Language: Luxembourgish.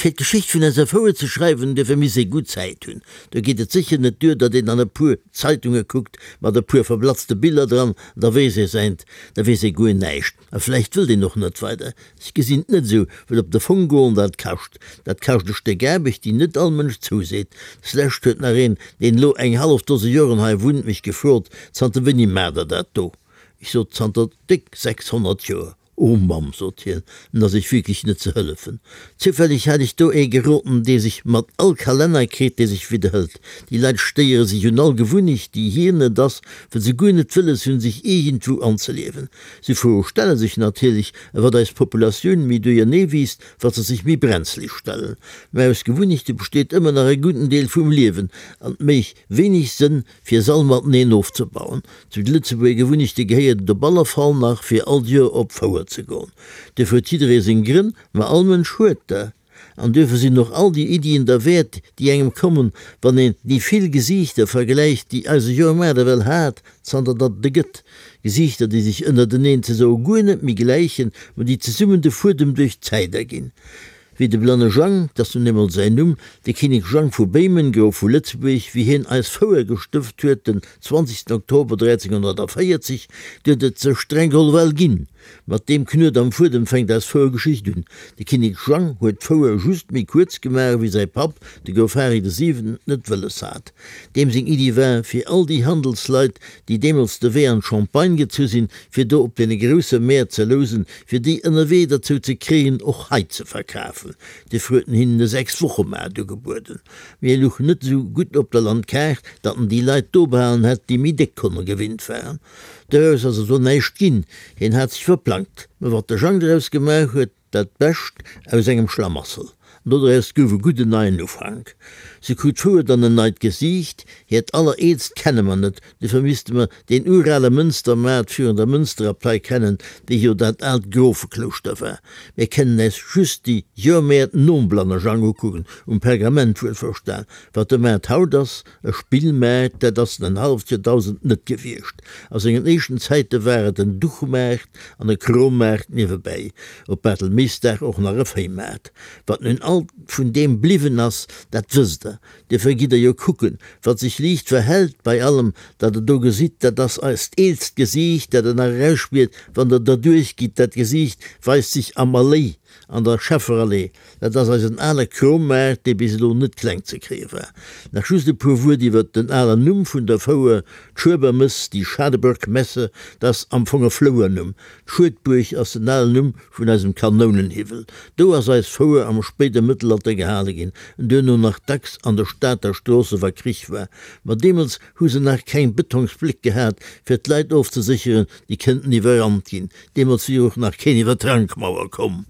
Fir d'Geschicht vun eiser Fouer ze schreiwen, duerfir misst ee gutt Zäit hunn. Do geet et sécher net duer, datt een an e puer Zeitunge kuckt, mat e puer verblatzte Biller dran, an da weess ee säint, da weess ee guer näischt. A vläicht wëllt een och net weider. Ech gesinn et net esou, well op de Fong goen, dat kascht. Dat kascht e Stéck Aarbecht, déi net all Mënsch zouseet. Deslescht huet nach een, deen elo eng hallef Dose Joren hei wunnt, mech gefrot, Zanter wéini maacht Der dat do? Ech sot, Zanter déck 600 Joer. O Mamm, sot hien, en ass iech wierklech net ze hëllefen. Zoufälleg hat ech do ee geroden, dee sech mat all Kalenner kritt, dee sech widderhëlt. Déi Leit stéiere sech un all Gewunnecht, déi hir net ass, well se guer net wëlles hunn, sech iergendwou anzeliewen. Sou Froe stelle sech natierlech, a wat eis Populatioun méi duerjernee wiisst, wat se sech méi brenzlig stellen. Mä aus Gewunnechte besteet ëmmer nach e gudden Deel vum Liewen, an et méich wéineg Sënn, fir s'all mateneen ofzebauen. Zu de Lëtzebuerger Gewunnechte gehéiert et op alle Fall nach, fir all Joer op d'Fouer ze goen. Duerfir huet jidderee seng Grënn, ma all Mënsch huet der. An duerfir sinn och all déi Iddien derwäert, déi engem kommen, wann een déi vill Gesiichter vergläicht, déi eise Joermaart ewell hat, zanter datt et e gëtt. Gesiichter, déi sech ënnerteneen ze soe guer net méi gläichen, ma déi zesummen de Fuedem duerch d'Zäit erginn. Wéi de blanne Jang, 't ass nun eemol säin Numm, de Kinnek Jang vu Béimen, Grof vu Lëtzebuerg, wéi hien eis Fouer gestëft huet den 20 Oktober 1340, du huet et se streng geholl well ginn. Mat deem Knuet am Fuedem fänkt eis Fouergeschicht un. De Kinnek Jang huet d'Fouer just méi kuerz gemaach, wéi säi Papp, de Grof Hari de Siwenten, et net wëlles hat. Deem seng Iddi war, fir all déi Handelsleit, déi deemools de Wee an d'Champagne gezu sinn, fir do op deene grousse Mäert ze lousen, fir déi ënnerwee derzou ze kréien, och hei ze verkafen. Duerfir huet en hinnen e Sechs-Woche-Maart ugebueden. Mee e luch net esou gutt op der Landkaart, datt en déi Leit do behalen hätt, déi méi déck Konne gewinnt waren. Doraus ass also näischt ginn, hien hat sech verplangt. Mä wat de Jang doraus gemaach huet, dat Bescht aus engem Schlamassel. An doraus gouf e gudden neien Ufank. Se krut d'Fouer dann en neit Gesiicht, hiert allereelst kenne mer net, Duerfir misste mer deen urale Mënstermaart virun der Mënsterabtei kennen, déi jo dat aalt Grofeklouschter war. Mir kennen äis just déi Joermäert nom Blannerjang ukucken, um Pergament wuelverstan. Wat de Maart haut ass, e Spillmaart, dat ass en en halleft Joerdausend net gewiescht. A sengen éischten Zäite war et en Duchmaart an e Krommaart niewebäi, op Bartelméisdag och nach e Véimaart. Wat nun alt vun deem bliwwen ass, dat wësst Der. Duerfir gitt der jo kucken, wat sech liicht verhält bei allem, dat der do gesitt, dat ass eist eelst Gesiicht, dat der nach erausspiert, wann der derduerch gitt. Dat Gesiicht weist sech am Alléi, an der Schefferallee. Dat ass eisen ale Krommaart, dee bis elo net kleng ze kréie war. Nach just e puer Wuert iwwert den alen Numm vun der Fouer, d'Schuebermëss, die Schadeburg-Messe, dat ass am Fong e Flouernumm. D'Schuedbuerg ass den alen Numm vun eisem Kanounenhiwwel. Do ass eis Fouer am spéide Mëttelalter gehale ginn, en duerno nach dacks an de Stater Stroosse wa Krich war. Ma deemools hu se nach keng Betongsbléck gehat, fir d'Leit ofzesécheren, déi kënnten iwwerrannt ginn. Deemools wier och nach keen iwwer d'Rankmauer komm.